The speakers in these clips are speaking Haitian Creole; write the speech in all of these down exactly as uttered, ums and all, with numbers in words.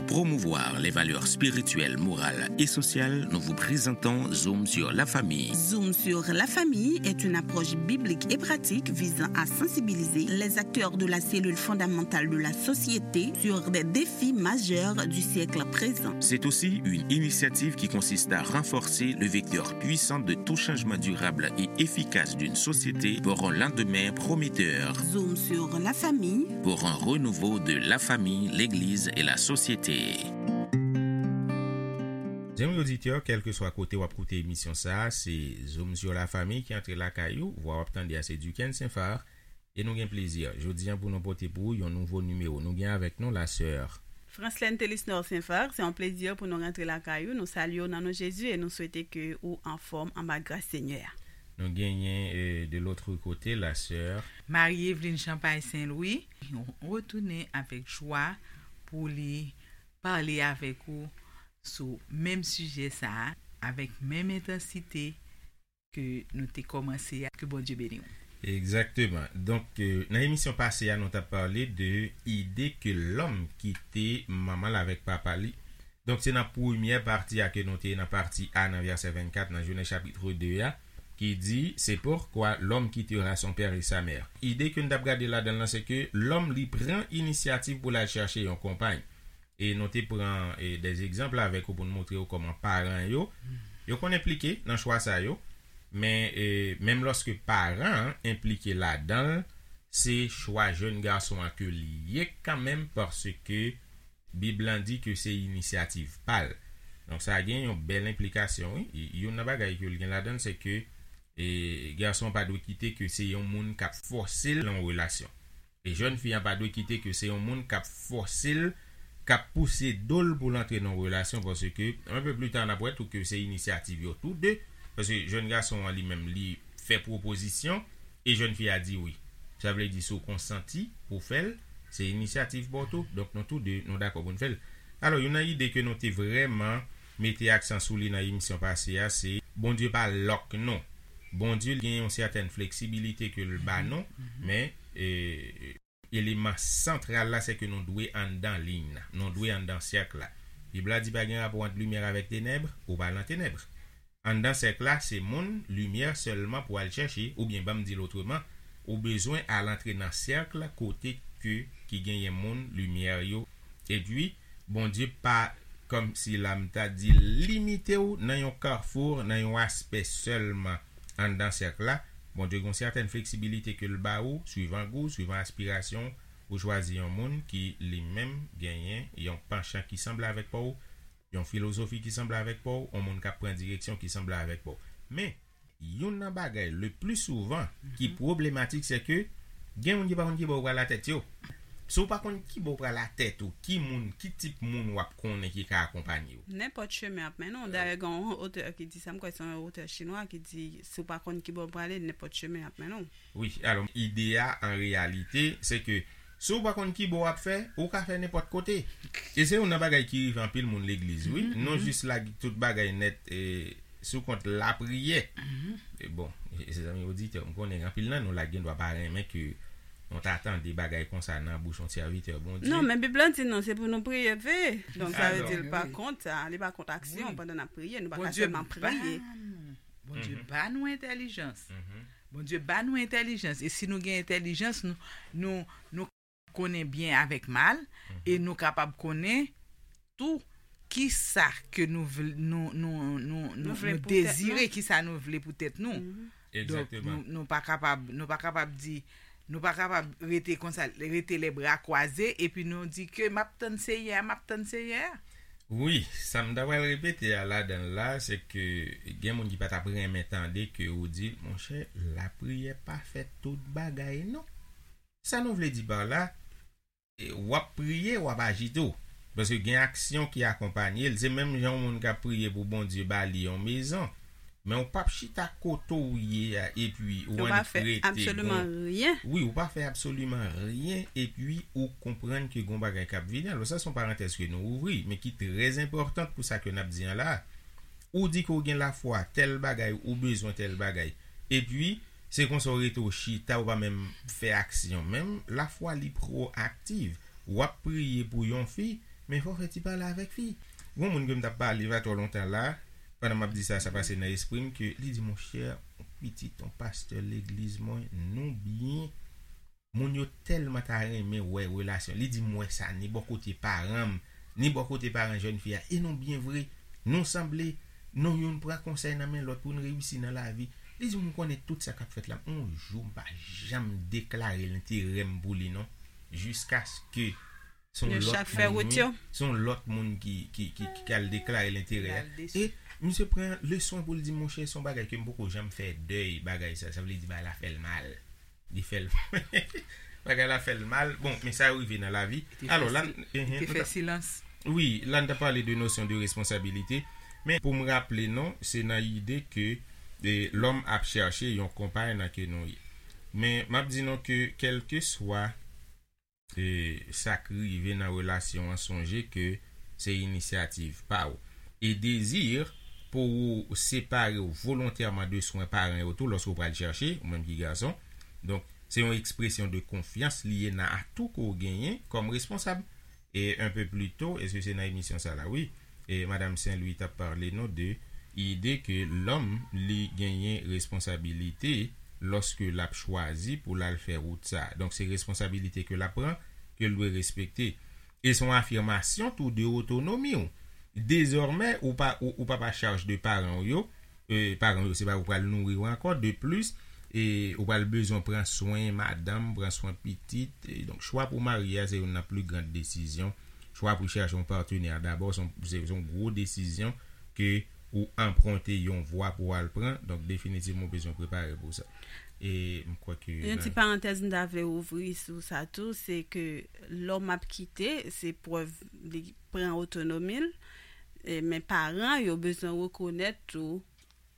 promouvoir les valeurs spirituelles, morales et sociales, nous vous présentons Zoom sur la famille. Zoom sur la famille est une approche biblique et pratique visant à sensibiliser les acteurs de la cellule fondamentale de la société sur des défis majeurs du siècle présent. C'est aussi une initiative qui consiste à renforcer le vecteur puissant de tout changement durable et efficace d'une société pour un lendemain prometteur. Zoom sur la famille. Pour un renouveau de la famille, l'Église et la société. Zanmi oditè, kèlkeswa kote w ap koute emisyon sa a, se Zoom sur la famille ki antre lakay ou. Vwa w ap tande a se Duquesne Saint-Phar. E nou gen plezi, jodi a, pou nou pote pou ou yon nouvo nimewo. Nou gen avèk nou la sè Franslène Telisnor Saint-Phar, se yon plezi pou nou rantre lakay ou. Nou salye w nan non Jezi e nou swete ke ou anfòm anba gras Senyè a. Nou genyen, euh, de l'autre côté, la sè Marie Eveline Champagne Saint-Louis, retounen avèk jwa pou li pale avèk ou sou menm sijè sa a, avèk menm entansite ke nou te kòmanse a. Ke Bondye beni w. Egzakteman. Donk, euh, nan emisyon pase a, nou t ap pale de ide ke lòm kite manman l avèk papa li. Donk, se nan premyè pati a ke nou te ye, nan pati A, nan vèsè vennkat, nan Jenèz chapit de a, ki di, c'est pourquoi l'homme quittera son père et sa mère. Ide ke n t ap gade ladan l lan, se ke lòm li pran inisyativ pou l al chèche yon konpay. E nou te pran, e, de egzanp avèk ou pou n montre w kòman paran yo, yo konn enplike nan chwa sa yo. Men, e, menm lòske paran an enplike ladan l, se chwa jèn gason an ke li ye kanmenm, paske Bib lan di ke se inisyativ pa l. Donk, sa gen yon bèl enplikasyon, wi. Y-, youn nan bagay ke l gen ladan l, se ke, e, gason an pa dwe kite ke se yon moun k ap fòse l nan yon relasyon. E jèn fi an pa dwe kite ke se yon moun k ap fòse l, k ap pouse do l pou l antre nan yon relasyon, paske, un peu plus tard, n ap wè tou ke se inisyativ yo tou de, paske jèn gason an li menm, li fè pwopozisyon, e jèn fi a di wi. Sa vle di, si w konsanti pou w fè l, se inisyativ pa w tou. Donk, nou tou de, nou dakò pou n fè l. Alò, youn nan ide ke nou te vrèman mete aksan sou li nan emisyon pase a, se Bondye pa lòk nou. Bondye gen yon sètèn fleksibilite ke l ba nou, men, e, eleman santral la, se ke nou dwe anndan liy nan. Nou dwe anndan sèk la. Bib la di pa gen rapò ant limyè avèk tenèb, ou pa nan tenèb. Anndan sèk la, se moun limyè sèlman pou al chèche, oubyen, ban m di l otreman, ou bezwen al antre nan sèk kote ke, ki genyen moun limyè yo. Epi, Bondye pa, kòmsi la m ta di, limite w nan yon kafou, nan yon aspè sèlman anndan sèk la. Bondye gen yon sètèn fleksibilite ke l ba ou, swivan gou, swivan aspirasyon, ou chwazi yon moun ki li menm genyen yon panchan ki sanble avèk pa w, yon filozofi ki sanble avèk pa w, yon moun k ap pran direksyon ki sanble avèk pa w. Men, youn nan bagay le pli souvan ki pwoblematik, se ke gen moun ki pa konn ki bò yo pral atèt yo. Si w pa konn ki bò w pral atèt ou, ki moun, ki tip moun w ap konnen ki ka akonpanye w? Nenpòt chemen ap mennen w. Dayè, gen yon otè ki di sa, m kwè se yon otè chinwa ki di, si w pa konn ki bò w prale, nenpòt chemen ap mennen w. Wi, alò, ide a, an reyalite, se ke si w pa konn ki bò w ap fè, ou ka fè nenpòt kote. E se youn nan bagay ki rive anpil moun legliz, wi. Nou jis lage tout bagay nèt, e, sou kont lapriyè. E bon, e, se zanmi oditè, m konnen anpil nan nou la gendwa pa renmen ke nou ta tande bagay konsa nan bouch yon sèvitè Bondye. Non, men Bib la di nou, se pou nou priye, veye. Donk, sa vle di l pa kont sa, li pa kont aksyon pandan n ap priye, nou pa ka sèlman priye. Bondye ba nou entèlijans. Bondye ba nou entèlijans. E si nou gen entèlijans, nou, nou, nou konnen byen avèk mal, e nou kapab konnen tou ki sa ke nou vle, nou, nou, nou, nou, nou dezire, ki sa nou vle pou tèt nou. Donk, nou, nou pa kapab, nou pa kapab di, nou pa kapab rete konsa, rete les bras croisés, epi nou di ke m ap tann Seyè a, m ap tann Seyè a. Wi, sa m ta pral repete a ladan l la, se ke gen moun ki pa t ap renmen tande ke ou di, monchè, lapriyè pa fè tout bagay, non. Sa nou vle di pa la, e, w ap priye, w ap aji tou. Paske gen aksyon ki akonpanye l. Se menm jan yon moun k ap priye pou Bondye ba li yon mezon. Men ou p ap chita kote w ye a, epi ou annik rete. Ou pa fè absoliman ryen. Wi, ou pa fè absoliman ryen, epi ou konprann ke gon bagay k ap vini. Alò, sa se yon parantèz ke nou ouvri, men ki trè enpòtan pou sa ke n ap di an la. Ou di ke w gen lafwa, tèl bagay, ou bezwen tèl bagay. Epi, se konsa w rete w chita, ou pa menm fè aksyon. Menm lafwa li pwoaktiv. W ap priye pou yon fi, Men fò w fè ti pale avèk fi. Gon moun ke m t ap pale pa twò lontan la, pandan m ap di sa, sa pase nan espri m, ke li di, monchè, yon pitit, yon pastè legliz mwen, nou byen. Moun yo tèlman ta renmen wè relasyon. Li di, m wè sa, ni bò kote paran m, ni bò kote paran jèn fi a. E nou byen vre. Nou sanble. Nou youn pran konsèy nan men lòt pou n reyisi nan lavi. Li di, m konnen tout sa k ap fèt la. Yon jou, m pa janm deklare lenterè m pou li, non. Jiskaske se yon lòt moun, wi. Se yon lòt moun ki, ki, ki, ki al deklare lenterè a. E misye pran leson pou l di, monchè, se yon bagay ke m poko janm fè dèy bagay sa. Sa vle di, bagay la fè l mal. Li fè l, bagay la fè l mal. Bon, men sa yo rive nan lavi. Alò, la, li te fè silans. Wi, la n ta pale de nosyon de responsabilite. Men pou m raple nou, se nan ide ke, e, lòm ap chache yon konpay nan ke nou ye. Men m ap di nou ke kèlkeswa e, sa k rive nan relasyon an, sonje ke se inisyativ pa w. E dezi pou ou separe w volontèman de swen paran yo tou lòske w pral chache, ou menm ki gason. Donk, se yon ekspresyon de konfyans li ye nan atou ke w genyen kòm responsab. E un peu plus tôt, èske se nan emisyon sa la? Wi. E Madanm Saint-Louis t ap pale nou de ide ke lòm li genyen responsabilite lòske l ap chwazi pou l al fè wout sa. Donk, se responsabilite ke l ap pran, ke l dwe respekte. E se yon afimasyon tou de otonomi w. Dezòmè, ou pa, ou, ou pa pa chaj de paran w yo, e, paran w yo, se pa ou pral nouri yo ankò. De plis, e, ou pral bezwen pran swen madanm, pran swen pitit. E, donk, chwa pou marye a, se youn nan pli gran desizyon. Chwa pou chache yon patnè dabò, se yon, se, se yon gwo desizyon ke ou anprante yon vwa pou w al pran. Donk, definitivman, ou bezwen prepare pou sa. E m kwè ke yon ti parantèz m ta vle ouvri sou sa tou, se ke lòm ap kite, se prèv li pran otonomi l, e, men paran yo bezwen rekonèt tou,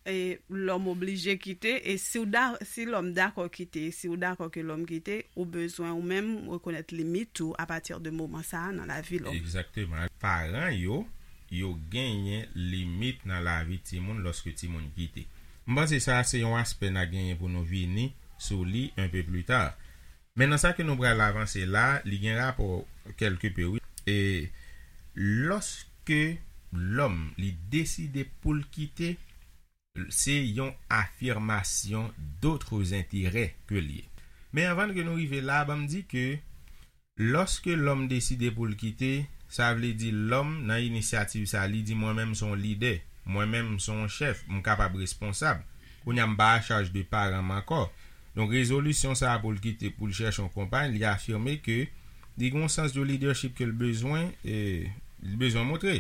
e, lòm oblije kite, e si w da, si lòm dakò kite, e si w dakò ke lòm kite, ou bezwen ou menm rekonèt limit ou apati de moman sa a nan lavi lòm. Egzakteman. Paran yo, yo genyen limit nan lavi timoun lòske timoun kite. M panse sa se yon aspè n a genyen pou nou vini sou li un peu plus tard. Men nan sa ke nou pral avanse la, li gen rapò kèlke pe, wi. E lòske lòm li deside pou l kite, se yon afimasyon d'autres intérêts ke l ye. Men anvan ke nou rive la, ban m di ke lòske lòm deside pou l kite, sa vle di lòm nan inisyativ sa, li di, mwen menm se yon lidè, mwen menm se yon chèf, m kapab responsab. Kounye a m pa a chaj de paran m ankò. Donk, rezolisyon sa a pou l kite, pou l chèche yon konpay, li afime ke li gen yon sans de leadership ke l bezwen, e, li bezwen montre.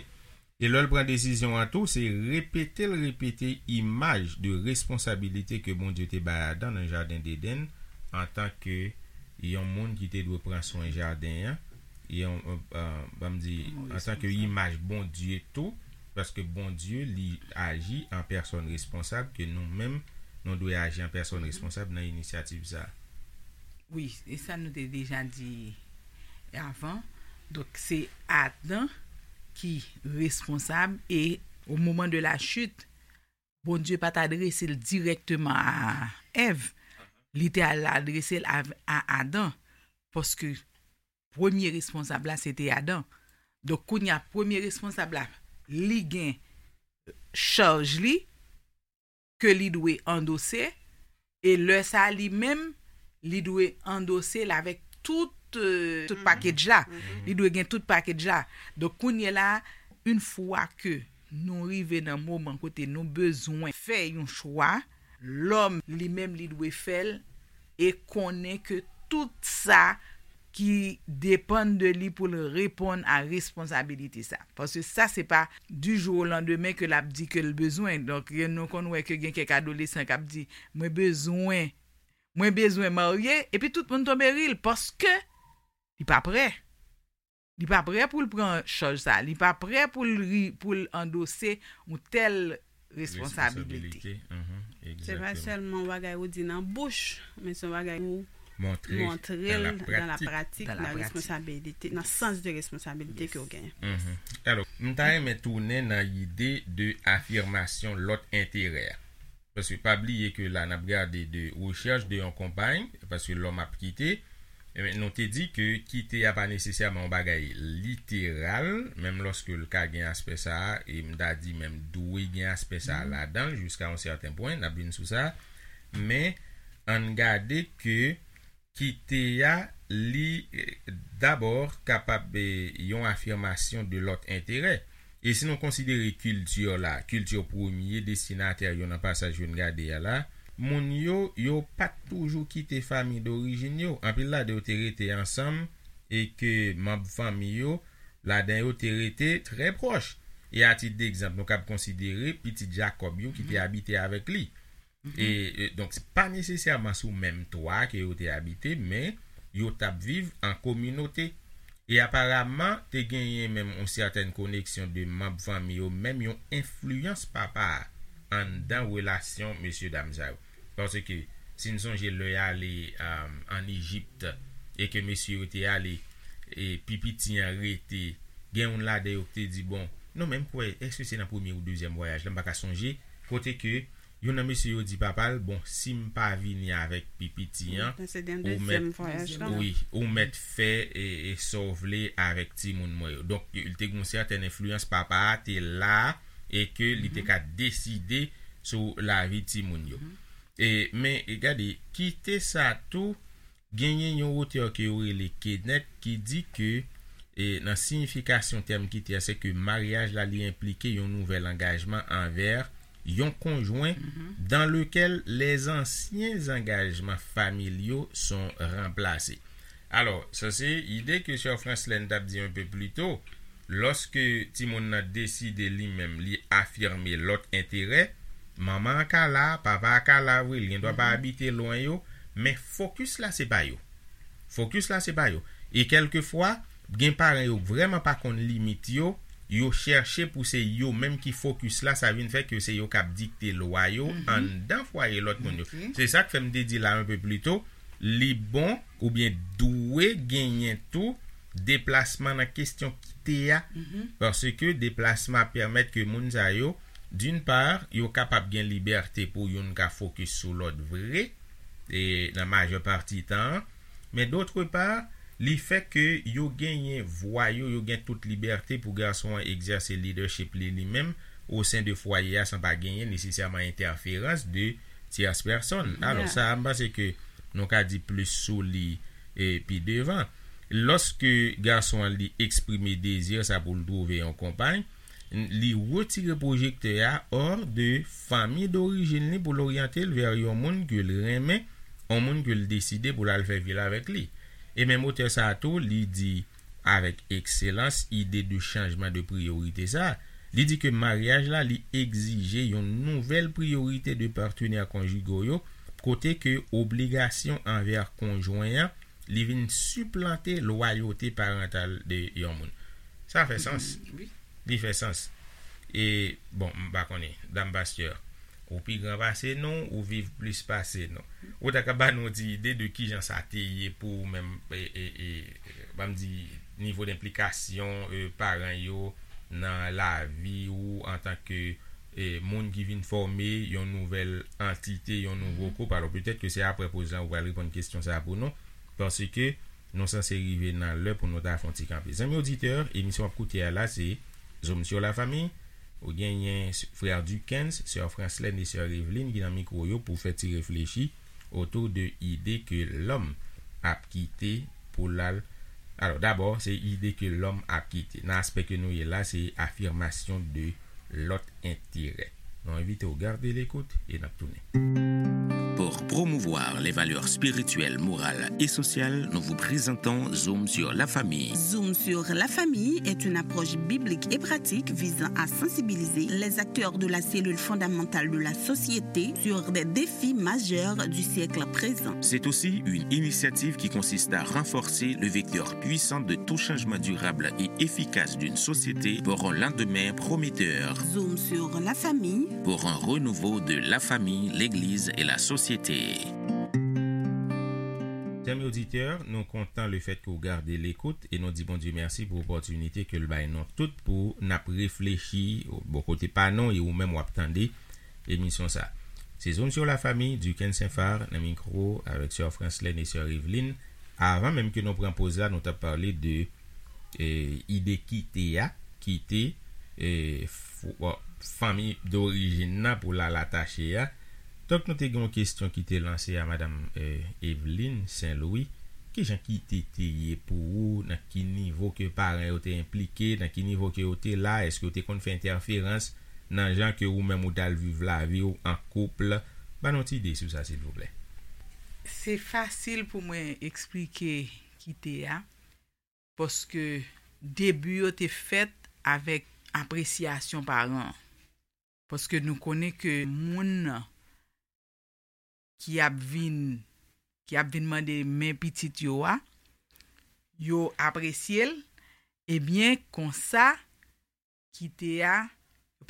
E lè l pran desizyon an tou, se repete l repete imaj de responsabilite ke Bondye te bay Adan nan jaden Edenn, antanke yon moun ki te dwe pran swen jaden an, yon, e, e, ban m di, antanke imaj Bondye tou, paske Bondye, li aji an pèsòn responsab, ke nou menm, nou dwe aji an pèsòn responsab nan inisyativ sa a. Wi, e sa nou te deja di avan. Donk, se Adan ki responsab e, au moment de la chute, Bondye pa t adrese l dirèkteman a Èv. Li te al adrese l a, a Adan. Paske premye responsab la, se te Adan. Donk, kounye a, premye responsab la, li gen chaj li, ke li dwe andose, e lè sa a li menm, li dwe andose l avèk tout, e, tout package la. Li dwe gen tout package la. Donk, kounye la, yon fwa ke nou rive nan moman kote nou bezwen fè yon chwa, lòm li menm li dwe fè l e konnen ke tout sa ki depann de li pou l reponn a responsabilite sa. Paske sa se pa du jour au lendemain ke l ap di ke l bezwen. Donk, nou konn wè ke gen kèk adolesan k ap di, mwen bezwen, mwen bezwen marye, epi tout moun tonbe ri l paske li pa prè. Li pa prè pou l pran chaj sa. Li pa prè pou l ri, pou l andose yon tèl responsabilite. Se pa sèlman yon bagay ou di nan bouch, men se yon bagay ou montre l dan la pratik, nan responsabilite, nan sans de responsabilite ke w genyen. Alò, m ta renmen tounen nan ide de afimasyon lòt enterè a. Paske pa bliye ke la, n ap gade de rechèch de yon konpay, paske lòm ap kite, Ebyen, nou te di ke kite a pa nesesèman yon bagay literal, menm lòske l ka gen aspè sa a, e m ta di menm dwe gen aspè sa a ladan l jiska yon sèten pwen, n ap vin sou sa, men ann gade ke kite a, li, eh, dabò kapab, eh, yon afimasyon de lòt enterè. E si nou konsidere kilti la, kilti premye destinatè yo nan pasaj yo n gade a la, moun yo, yo pa t toujou kite fanmi dorijin yo. Anpil ladan yo te rete ansanm e ke manm fanmi yo, ladan yo te rete trè pwòch. E a tit degzanp, nou kab konsidere pitit Jakòb yo ki te abite avèk li. E, e, donk, se pa nesesèman sou menm twa ke yo te abite, men yo t ap viv an kominote. E aparaman, te genyen menm yon sètèn koneksyon de manm fanmi yo, menm yon enfliyans papa a anndan relasyon mesyedam sa yo. Paske, si n sonje lè y ale, um, ann Ejipt, e ke mesye yo te ale, e pi piti an rete, gen youn ladan yo ki te di, bon, non, men m kwè, èske se nan premye ou dezyèm vwayaj la, m pa ka sonje, kote ke youn nan mesye yo di papa l, bon, si m pa vini avèk pi piti an, ou mèt, wi, ou mèt fè e, e sa w vle avèk timoun mwen yo. Donk, li te gen yon sètèn enfliyans papa a te la e ke li te ka deside sou lavi timoun yo. E, men, e gade, kite sa tou, genyen yon otè ke yo rele Kenneth ki di ke, e, nan siyifikasyon tèm kite a, se ke maryaj la, li enplike yon nouvèl angajman anvè yon konjwen, dans lequel les anciens engagements familiaux sont remplacés. Alò, sa se ide ke Sè Franslèn t ap di yon pe pli to, lòske timoun nan deside li menm, li afime lòt enterè, manman an ka la, papa a ka la vre, li gendwa pa abite lwen yo, men fokis la se pa yo. Fokis la se pa yo. E kèlkefwa, gen paran yo vrèman pa konn limit yo, yo chèche pou se yo menm ki fokis la, sa vin fè ke se yo k ap dikte lwa yo anndan fwaye lòt moun yo. Se sa k fè m te di la yon pe pli to, li bon oubyen dwe genyen tou deplasman nan kesyon kite a, paske deplasman ap pèmèt ke moun sa yo, d'une part, yo kapab gen libète pou youn ka fokis sou lòt vre, e nan majè pati tan an, men d'autre part, li fè ke yo genyen vwa yo, yo gen tout libète pou gason an egzèse leadership li li menm, o sen de fwaye a san pa genyen nesesèman entèferans de tyès pèsonn. Alò, sa a, m panse ke nou ka di plis sou li, e, pi devan. Lòske gason an li eksprime dezi sa pou l twouve yon konpay, li retire pwojektè a hors de fanmi dorijin li pou l oryante l vè yon moun ke l renmen, yon moun ke l deside pou l al fè vi l avèk li. E menm otè sa a tou, li di avèk ekselans ide de chanjman de priyorite sa a. Li di ke maryaj la, li egzije yon nouvèl priyorite de patenè konjigo yo, kote ke obligasyon anvè konjwen an, li vin siplante lwayote parantal de yon moun. Sa fè sans. Li fè sans. E, bon, m pa konnen, dam pastè, ou pi gran pase nou, ou viv plis pase nou. Ou ta ka ba nou ti ide de kijan sa te ye pou ou menm, e, e, e, ban m di, nivo denplikasyon, e, paran yo nan lavi ou antanke, e, moun ki vin fòme yon nouvèl antite, yon nouvo koup. Alò, petèt ke se aprè poz lan ou pral reponn kesyon sa a pou nou, paske nou sanse rive nan lè pou nou ta fè yon ti kanpe. Zanmi oditè, emisyon w ap koute a la, se Zoom sur la Famille. Ou genyen s-, frè Duckens, sè Franslèn e sè Eveline ki nan mikwo yo pou fè ti reflechi otou de ide ke lòm ap kite pou l al. Alò, dabò, se ide ke lòm ap kite. Nan aspè ke nou ye la, se afimasyon de lòt enterè. Nou envite w gade lekout e n ap tounen. Pour promouvoir les valeurs spirituelles, morales et sociales, nous vous présentons Zoom sur la famille. Zoom sur la famille est une approche biblique et pratique visant à sensibiliser les acteurs de la cellule fondamentale de la société sur des défis majeurs du siècle présent. C'est aussi une initiative qui consiste à renforcer le vecteur puissant de tout changement durable et efficace d'une société pour un lendemain prometteur. Zoom sur la famille. Pour un renouveau de la famille, l'Église et la société. Zanmi oditè, nou kontan le fèt ke w gade lekout e nou di Bondye mèsi pou opòtinite ke l bay nou tout pou n ap reflechi bò kote pa nou e ou menm w ap tande emisyon sa. Se Zoom sur la Famille, Duckens Saint-Phar nan mikwo avèk sè Franslèn e sè Eveline. avan menm ke nou pran poz la, nou t ap pale de e, ide kite a, kite e, f- bon, fanmi dorijin nan pou l al atache a. Donk, nou te gen yon kesyon ki te lanse a madanm e, Eveline Saint Louis. Kijan kite te ye pou ou? Nan ki nivo ke paran yo te enplike? Nan ki nivo ke yo te la? Èske yo te konn fè entèferans nan jan ke ou menm ou t al viv lavi w an koup? Ban nou ti ide sou sa, silvouplè. Se fasil pou mwen eksplike kite a, paske debi yo te fèt avèk apresyasyon paran. Paske nou konnen ke moun nan ki ap vin ki ap vin mande men pitit yo a, yo apresye l, ebyen konsa kite a,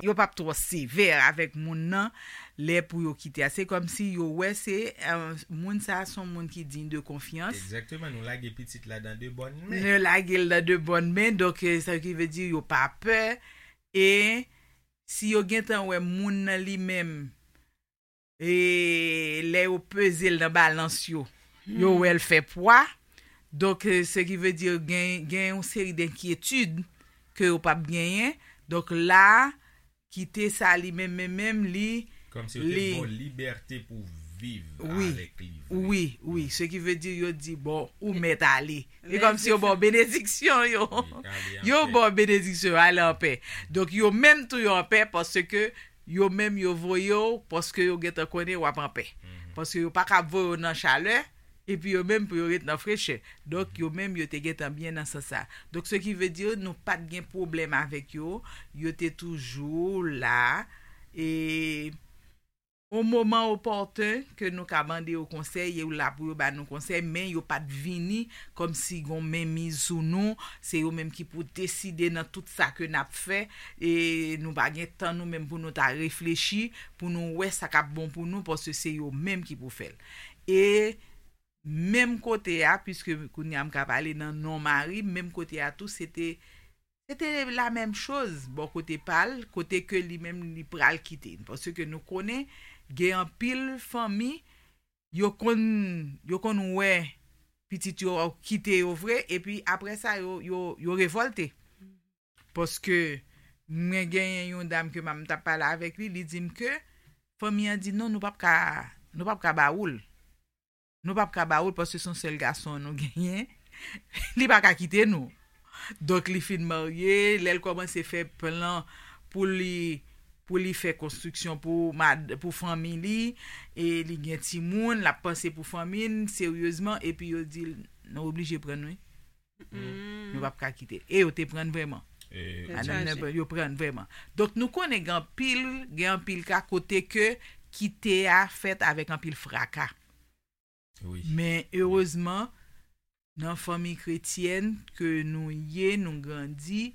yo p ap twò sevè avèk moun nan lè pou yo kite a. Se kòmsi yo wè se eh, moun sa a se yon moun ki diy de konfyans. Egzakteman, nou lage pitit la dan de bòn men. Nou lage l dan de bòn men, donk eh, sa ki vle di yo pa pè. E si yo gentan wè moun nan li menm e lè yo peze l nan balans yo, yo wè l fè pwa. Donk, eh, se ki vle di gen, gen yon seri denkyetid ke yo p ap genyen. Donk, la, kite sa li menm, menm, menm, li. Kòmsi yo te li- ba w libète pou viv Wi. Avèk li vre. Wi, wi. Se ki vle di yo di, bon, ou mèt ale. E kòmsi yo ba w benediksyon, yo. Wi, ale an Yo pè. ba w benediksyon, ale an pè. Donk, yo menm tou yo an pè paske yo menm yo voye w paske yo gentan konnen w ap an pè. Paske yo pa ka voye w nan chalè, epi yo menm pou yo ret nan frechè. Donk, yo menm yo te gentan byen nan sans sa. Donk, se ki vle di nou pa t gen pwoblèm avèk yo, yo te toujou la. E o moman opòten ke nou ka mande yo konsèy, yo la pou yo ba nou konsèy, men yo pa t vini kòmsi gon menmiz sou nou, se yo menm ki pou deside nan tout sa ke n ap fè, e nou pa gen tan nou menm pou nou ta reflechi, pou nou wè sa k ap bon pou nou, paske se yo menm ki pou fè l. E menm kote a, piske kounye a m ka pale nan non mari, menm kote a tou, se te se te la menm choz bò kote pa l, kote ke li menm li pral kite. Paske nou konnen gen anpil fanmi, yo konn, yo konn wè pitit yo kite yo vre, epi apre sa, yo, yo, yo revòlte. Paske mwen genyen yon dam ke m t ap pale avèk li, li di m ke fanmi an di non, nou p ap ka, nou p ap ka ba ou l. Nou p ap ka ba ou l paske se yon sèl gason nou genyen. Li pa ka kite nou. Donk, li fin marye, lè l kòmanse fè plan pou li pou li fè konstriksyon pou mad, pou fanmi li, e li gen timoun, l ap panse pou fanmi l seryezman, epi yo di l, nou oblije pran n wi. Nou p ap ka kite l. E yo te pran n vrèman. E, Madanm nan, yo pran n vrèman. Donk, nou konnen gen anpil, gen anpil ka kote ke kite a fèt avèk anpil fraka. wi. Men erezman, nan fanmi kretyèn ke nou ye, nou grandi,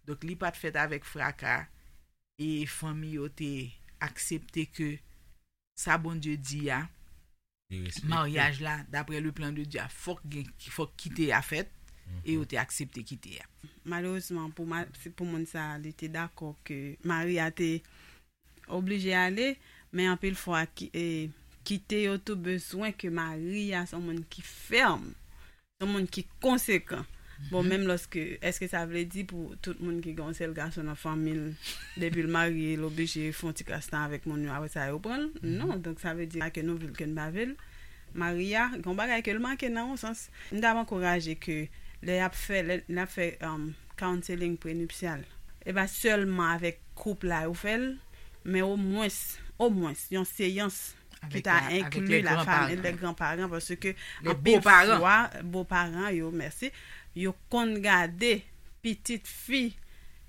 donk li pa t fèt avèk fraka, e fanmi yo te aksepte ke sa Bondye di a, Li respekte. Maryaj la, daprè le plan de Dieu, fòk gen, fòk kite a fèt, e yo te aksepte kite a. Malerezman, pou, ma- se pou moun sa a, li te dakò ke mari a te oblije ale, men anpil fwa, ki, e, kite yo tou bezwen ke mari a se yon moun ki fèm, se yon moun ki konsekan. Bon, menm lòske, èske sa vle di pou tout moun ki gen yon sèl gason nan fanmi l, depi l marye, l oblije fè yon ti kras tan avèk moun yo, apre sa yo pran l? Non, donk sa vle di ke nou vle l, ke n pa vle l. Mari a, gen yon bagay ke l manke nan yon sans. M t ap ankouraje ke lè y ap fè, lè, lè y ap fè um, counseling prenuptial, e pa sèlman avèk koup la yo fè l, men omwens, omwens, yon seyans ki ta enkli la fanmi, lè granparan, paske anpil fwa, boparan yo, mèsi, yo konn gade pitit fi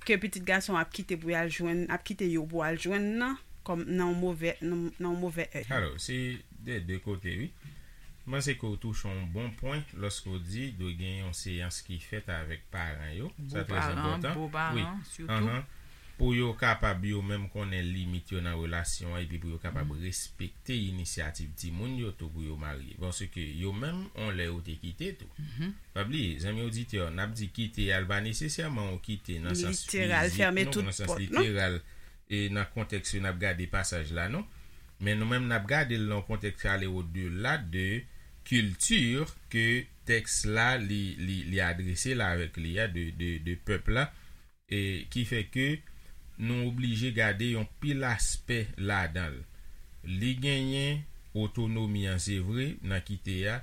ke pitit gason ap kite pou y al jwenn, ap kite yo pou al jwenn nan, kòm nan yon move, nan, nan yon move èy. Alò, se de de kote, wi. M panse ke w touche yon bon pwen lòske w di dwe gen yon seyans ki fèt avèk paran yo. Sa trè enpòtan. Wi. Pou yo kapab yo menm konnen limit yo nan relasyon an epi pou yo kapab respekte inisyativ timoun yo tou pou yo marye. Paske yo menm, on lè yo te kite tou. Pa bliye, zanmi oditè, n ap di kite a, l pa nesesèman yon kite nan sans fizik, non, nan sans literal, e nan kontèks ke n ap gade pasaj la, non. Men nou menm, n ap gade l nan yon kontèks ki ale odela de kilti ke tèks la, li, li, li adrese la avèk li a, de, de, de pèp la, e ki fè ke nou oblije gade yon pil aspè ladan l. Li genyen otonomi an, se vre, nan kite a,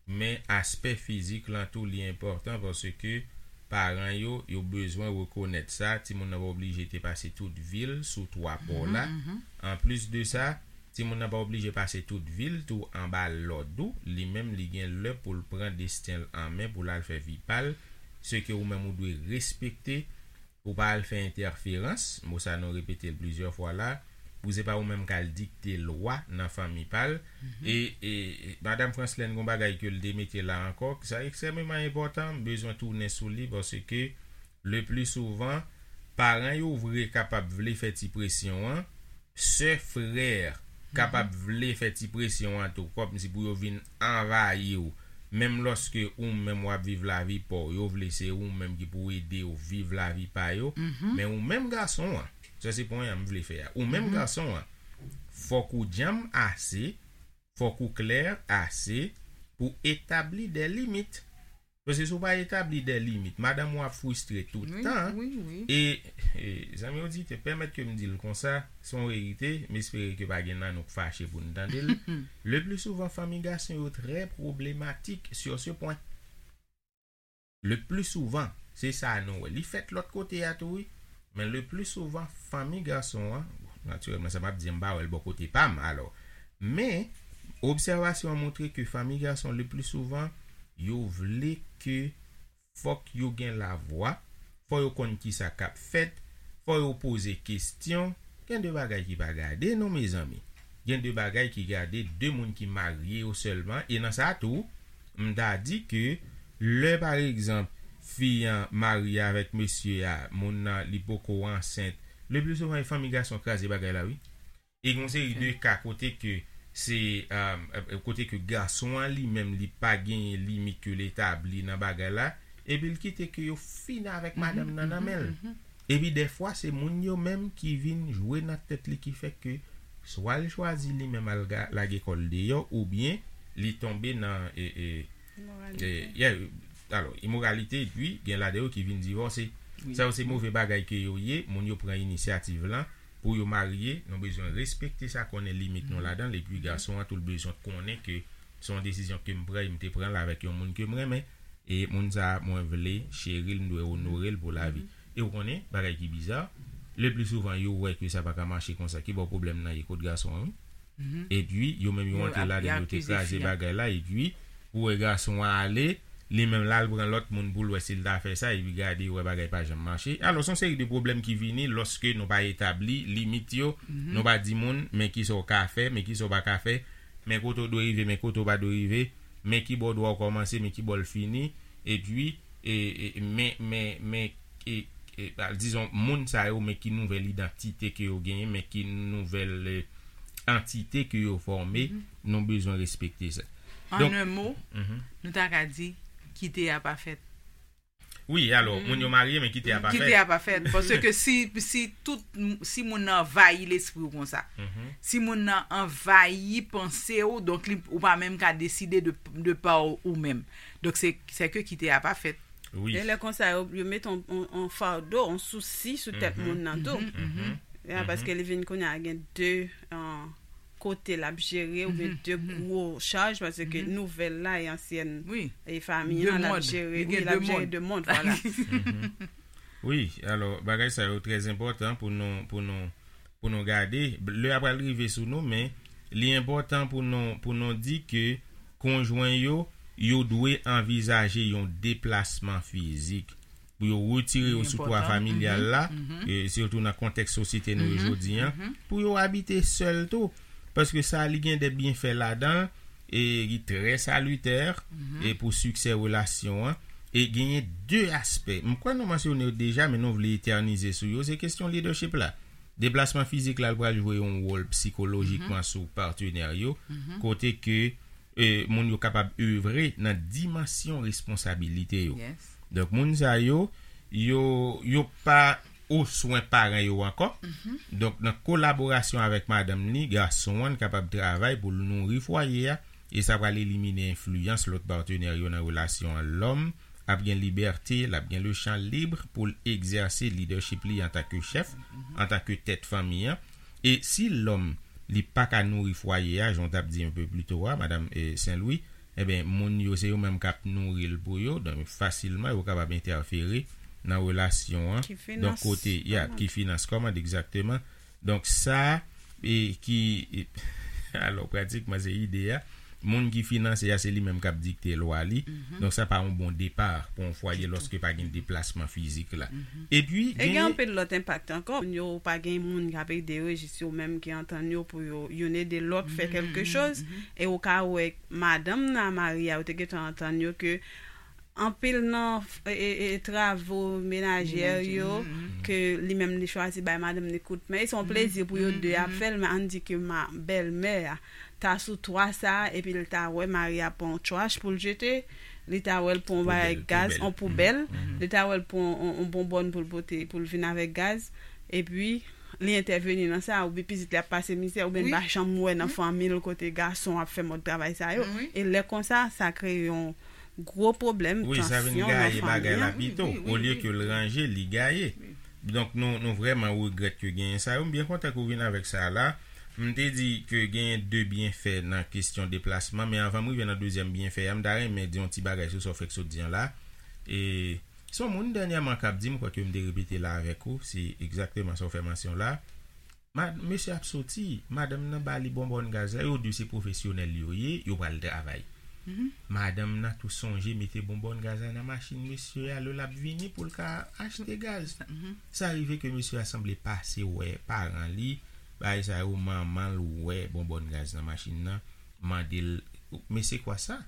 men aspè fizik lan tou, li enpòtan paske paran yo, yo bezwen rekonèt sa. Timoun nan pa oblije te pase tout vi l sou twa pò la. Anplis de sa, timoun nan pa oblije pase tout vi l tou anba lòd ou. Li menm, li gen lè pou l pran desten l an men, pou l al fè vi pa l. Se ke ou menm ou dwe respekte, pou pa al fè entèferans, mo sa nou repete l plizyè fwa la, pou se pa ou menm k al dikte lwa nan fanmi pa l. E, e, e, Madanm Franslèn, gon bagay ke l te mete la ankò, sa ekstrèmeman enpòtan, m bezwen tounen sou li, paske le pli souvan, paran yo vre kapab vle fè ti presyon an, sè, frè kapab vle fè ti presyon an tou, kòmsi pou yo vin anvayi w. Menm lòske ou menm w ap viv lavi pa w, yo vle se ou menm ki pou ede yo viv lavi pa yo. Men ou menm gason an, sa se pwen an m vle fè a. Ou menm gason an, fòk ou djanm ase, fòk ou klè ase pou etabli de limit. Paske si w pa etabli de limit, madanm ou ap fristre tout tan. E, e zanmi oditè, pèmèt ke m di l konsa, se yon verite, m espere ke pa gen nan nou k fache pou n tande l. Le pli souvan, fanmi gason yo trè pwoblematik sur ce point. Le pli souvan, se sa nou wè. Li fèt lòt kote a tou, wi. Men le pli souvan, fanmi gason an, bon, natirèlman, sa m ap di, m pa wè l bò kote pa m, alò. Men, obsèvasyon an montre ke fanmi gason, le pli souvan, yo vle ke fòk yo gen lavwa, fò yo konn kisa k ap fèt, fò yo poze kesyon. Gen de bagay ki pa gade, non, mezanmi. Gen de bagay ki gade de moun ki marye yo sèlman, e nan sa tou, m ta di ke lè, pa egzanp, fi an marye avèk mesye a, moun nan, li poko ansent, le pli souvan, e fanmi gason kraze bagay la, wi. E gen yon seri de ka kote ke se, um, kote ke gason an li menm, li pa genyen limit ke l etabli nan bagay la, epi l kite ke yo fin avèk madanm nan nan men l. Epi dèfwa, se moun yo menm ki vin jwe nan tèt li, ki fè ke swa l chwazi li menm al ga- lage kò l deyò, oubyen li tonbe nan, e, e, e, yeah, alò, imoralite, epi gen ladan yo ki vin divòse. Sa yo se move bagay ke yo ye, moun yo pran inisyativ lan pou yo marye, nou bezwen respekte sa, konnen limit nou ladan l, epi gason an tou l bezwen konnen ke se yon desizyon ke m pran, e m te pran l avèk yon moun ke m renmen, e moun sa a, mwen vle cheri l, m dwe onore l pou lavi. E ou konnen, bagay ki biza, le pli souvan, yo wè ke sa pa ka mache konsa, ki bò pwoblèm nan ye kot gason an, wi. Epi, yo menm yo antre ladan l, yo te kraze bagay la, epi, ou wè gason an ale, li menm l al pran lòt moun pou l wè si l ta fè sa, epi gade, ou wè bagay pa janm mache. Alò, se yon seri de pwoblèm ki vini lòske nou pa etabli limit yo, nou pa di moun, men kisa w ka fè, men kisa w pa ka fè, men kote w dwe rive, men kote w pa dwe rive, men ki bò dwa w kòmanse, men ki bò l fini, epi, e, e, men, men, men, e, e, dizon, moun sa yo, men ki nouvèl idantite ke yo genyen, men ki nouvèl, e, antite ke yo fòme, nou bezwen respekte sa. An en mo, nou ta ka di, kite a pa fèt. Wi, alò, moun yo marye, men kite a pa fèt. Kite a pa fèt. Paske si, si tout, si moun nan anvayi lespri w konsa, si moun nan anvayi panse w, donk li, ou pa menm ka deside de, de pa w ou menm. Donk se, se ke kite a pa fèt. Wi. E lè konsa, yo, yo met on, on, on fado, on sousi sou tèt moun nan tou. Ya, paske li vin kounye a gen de, an, kote l ap jere, oubyen de gwo chaj, paske nouvèl la e ansyèn, e fanmi an l ap jere, wi, l ap jere de mond, vwala. Wi, alò, bagay sa yo trè enpòtan pou nou, pou nou, pou nou gade. Lè a pral rive sou nou, men li enpòtan pou nou, pou nou di ke konjwen yo, yo dwe anvizaje yon deplasman fizik pou yo retire yo sou twa familyal la, e sitou nan kontèks sosyete nou yo jodi an, pou yo abite sèl tou. Paske sa, li gen de byenfè ladan l, e li trè salitè, e pou siksè relasyon an. E genyen de aspè. M kwè nou mansyone yo deja, men nou vle etènize sou yo. Se kesyon leadership la. Deplasman fizik la, l pral jwe yon wòl sikolojikman sou patenè yo, kote ke, e, moun yo kapab evre nan dimansyon responsabilite yo. Donk, moun sa yo, yo, yo pa o swen paran yo ankò. Donk, nan kolaborasyon avèk madanm li, gason an kapab travay pou l nouri fwaye a, E sa pral elimine enfliyans lòt patnè yo nan relasyon an. Lòm ap gen libète, l ap gen le chan lib pou l egzèse lidèchip li antanke chèf, antanke tèt fanmi an. E si lòm li pa ka nouri fwaye a, jan w t ap di yon pe pli to a, madanm eh, Sen Lwi, ebyen, moun yo se yo menm k ap nouri l pou yo, donk fasilman yo kapab entèfere nan relasyon an. Donk kote, ya, ki finans kòmand egzakteman. Donk sa e ki e, alò pratikman se ide a. Moun ki finanse a se li menm k ap dikte lwa li. Donk sa pa yon bon depa pou yon fwaye lòske pa gen deplasman fizik la. Epi e gen anpil lòt enpak ankò. Moun yo pa gen moun k ap ede yo, e jis yo menm ki antann yo pou yo youn ede lòt fè kèlke choz. E ou ka wè madanm nan a mari a, yo te gentan antann yo ke anpil nan e, e, e, travo menajè yo ke li menm li chwazi bay madanm li kout men. E se yon plezi pou yo de ap fè l, men ann di ke ma bèlmè a ta sou twa sa, epi l ta wè mari a pran yon tchwach pou l jete, li ta wè l pran yon bagay gaz, yon poubèl, li ta wè l pran yon, yon bonbòn pou l pote, pou l vin avèk gaz, epi li entèveni nan sa, oubyen pitit li ap pase mizè, oubyen l pa janm wè nan fanmi l kote gason ap fè mòd travay sa yo. E lè konsa, sa kreye yon gwo pwoblèm, tansyon nan fanmi an. Wi, sa vin gaye bagay la pito. Olye ke l ranje, li gaye. Donk, nou, nou vrèman regrèt ke genyen sa yo. M byen kontan ke w vin avèk sa la. M te di ke genyen de byenfè nan kesyon deplasman, men anvan m rive nan dezyèm byenfè a, m ta renmen di yon ti bagay sou sa w fèk sot di an la. E se yon moun dènyèman k ap di, m kwè ke m te repete la avèk ou, se egzakteman sa w fè mansyon la. Ma, mesye ap soti, madanm nan ba li bonbòn gaz la, yo di se pwofesyonèl yo ye, yo pral travay. Madanm nan tou sonje mete bonbòn gaz la nan machin mesye a lè l ap vini pou l ka achte gaz. Sa rive ke mesye a sanble pase wè paran li, bagay sa yo, manman l wè bonbòn gaz nan machin nan, mande l, men se kwa sa?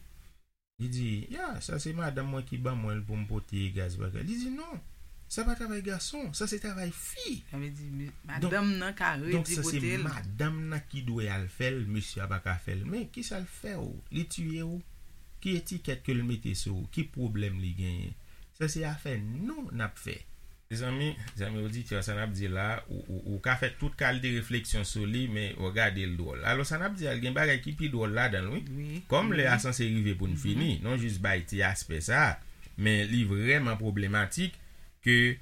Li di, ya, sa se madanm mwen ki ban mwen l pou m pote gaz bagay. Li di, non, sa pa travay gason, sa se travay fi. Sa vle di, madanm nan ka redi pote l. Donk, sa se madanm nan ki dwe al fè l, mesye a pa ka fè l. Men, kisa l fè w? Li tiye w? Ki etikèt ke l mete sou ou? Ki pwoblèm li genyen? Sa se afè nou n ap fè. Mezanmi, zanmi oditè, sa n ap di la, ou, ou, ou ka fè tout kalite refleksyon sou li, men w gade l dwòl. Alò, sa n ap di a, l gen bagay ki pi dwòl ladan l, wi. Kòm lè a sanse rive pou n fini, non jis bay ti aspè sa a, men li vrèman pwoblematik ke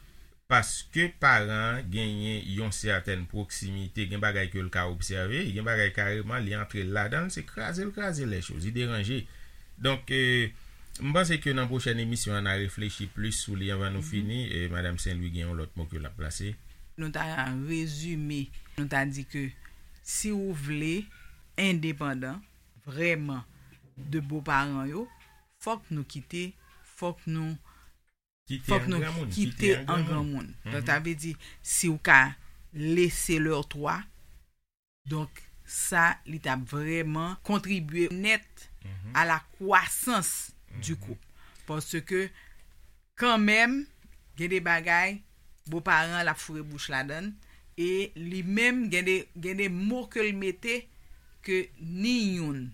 paske paran an genyen yon sètèn pwoksimite, gen bagay ke l ka obsève, gen bagay kareman, li antre l ladan l, se kraze l kraze lè choz, li deranje. Donk, e, m panse ke nan pwochèn emisyon an, n a reflechi plis sou li anvan nou fini. E, Madanm Sen Lwi gen yon lòt mo ke l ap plase. Nou ta rezime, nou ta di ke si ou vle endepandan vrèman de boparan yo, fòk nou kite, fòk nou Kite fòk an nou granmoun, kite kite an an granmoun. Granmoun. Donk, sa vle di, si w ka lese lè twa, donk, sa, li t ap vrèman kontribye nèt a la kwasans di koup. Paske, kanmenm, gen de bagay, boparan l ap foure bouch ladan l, e li menm, gen de, gen de mo ke l mete, ke ni youn,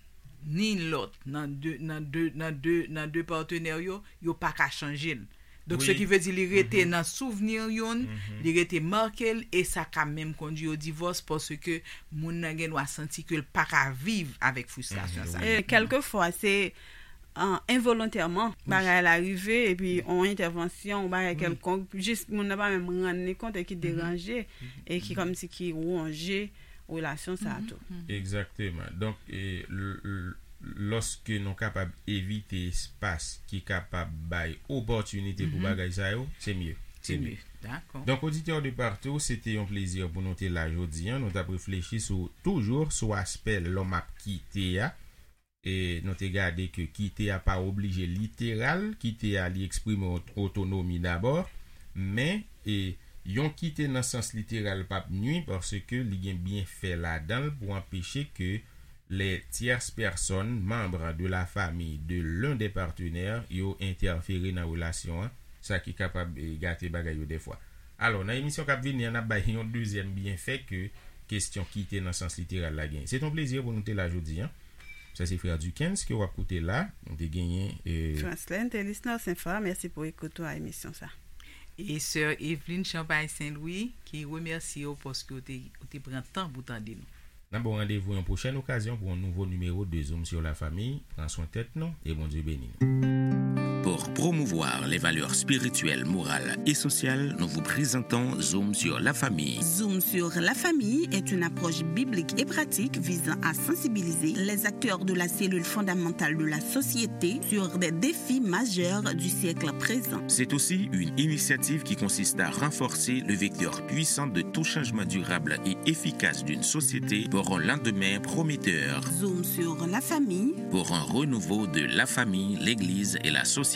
ni lòt, nan de, nan de, nan de, nan de patnè yo, yo pa ka chanje l. Donk, se ki vle di li rete nan souvni youn, li rete make l, e sa ka menm kondui o divòs, paske moun nan gen dwa santi ke l pa ka viv avèk fristrasyon sa. E kèlkefwa, se, e, envolontèman, bagay la rive, epi yon entèvansyon, yon bagay kèlkonk, jis moun nan pa menm rann li kont e ki deranje, e ki kòmsi ki wonje relasyon sa a tou. Egzakteman. Donk, e, l, l, lòske nou kapab evite espas ki kapab bay opòtinite pou bagay sa yo, se mye. Se mye. Dakò. Donk, oditè de partou, se te yon plezi pou nou te la jodi a. Nou t ap reflechi sou, toujou sou aspè lòm ap kite a. E nou te gade ke kite a pa oblije literal, kite a li eksprime ot-, otonomi dabò, men, e, yon kite nan sans literal p ap nwi paske li gen byenfè ladan l pou anpeche ke les tierces personnes, membres de la famille de l'un des partenaires, yo entèfere nan relasyon an, sa ki kapab, e, gate bagay yo dèfwa. Alò, nan emisyon k ap vini an, n ap bay yon dezyèm byenfè ke kesyon kite nan sans literal la genyen. Se t on plezi pou nou te la jodi a. Sa se Frè Duckens ke w ap koute la. Nou te genyen, e, Franslène Thélis Narcin Fa, mèsi pou ekout ou a emisyon sa. E Sè Evelyne Champagne Saint Louis, ki remèsye w paske w te, w te pran tan pou tande nou. N ap ba w randevou yon pwochèn okazyon pou yon nouvo nimewo de Zoom sur la famille. Pran swen tèt nou e Bondye beni nou. Pour promouvoir les valeurs spirituelles, morales et sociales, nous vous présentons Zoom sur la famille. Zoom sur la famille est une approche biblique et pratique visant à sensibiliser les acteurs de la cellule fondamentale de la société sur des défis majeurs du siècle présent. C'est aussi une initiative qui consiste à renforcer le vecteur puissant de tout changement durable et efficace d'une société pour un lendemain prometteur. Zoom sur la famille. Pour un renouveau de la famille, l'Église et la société.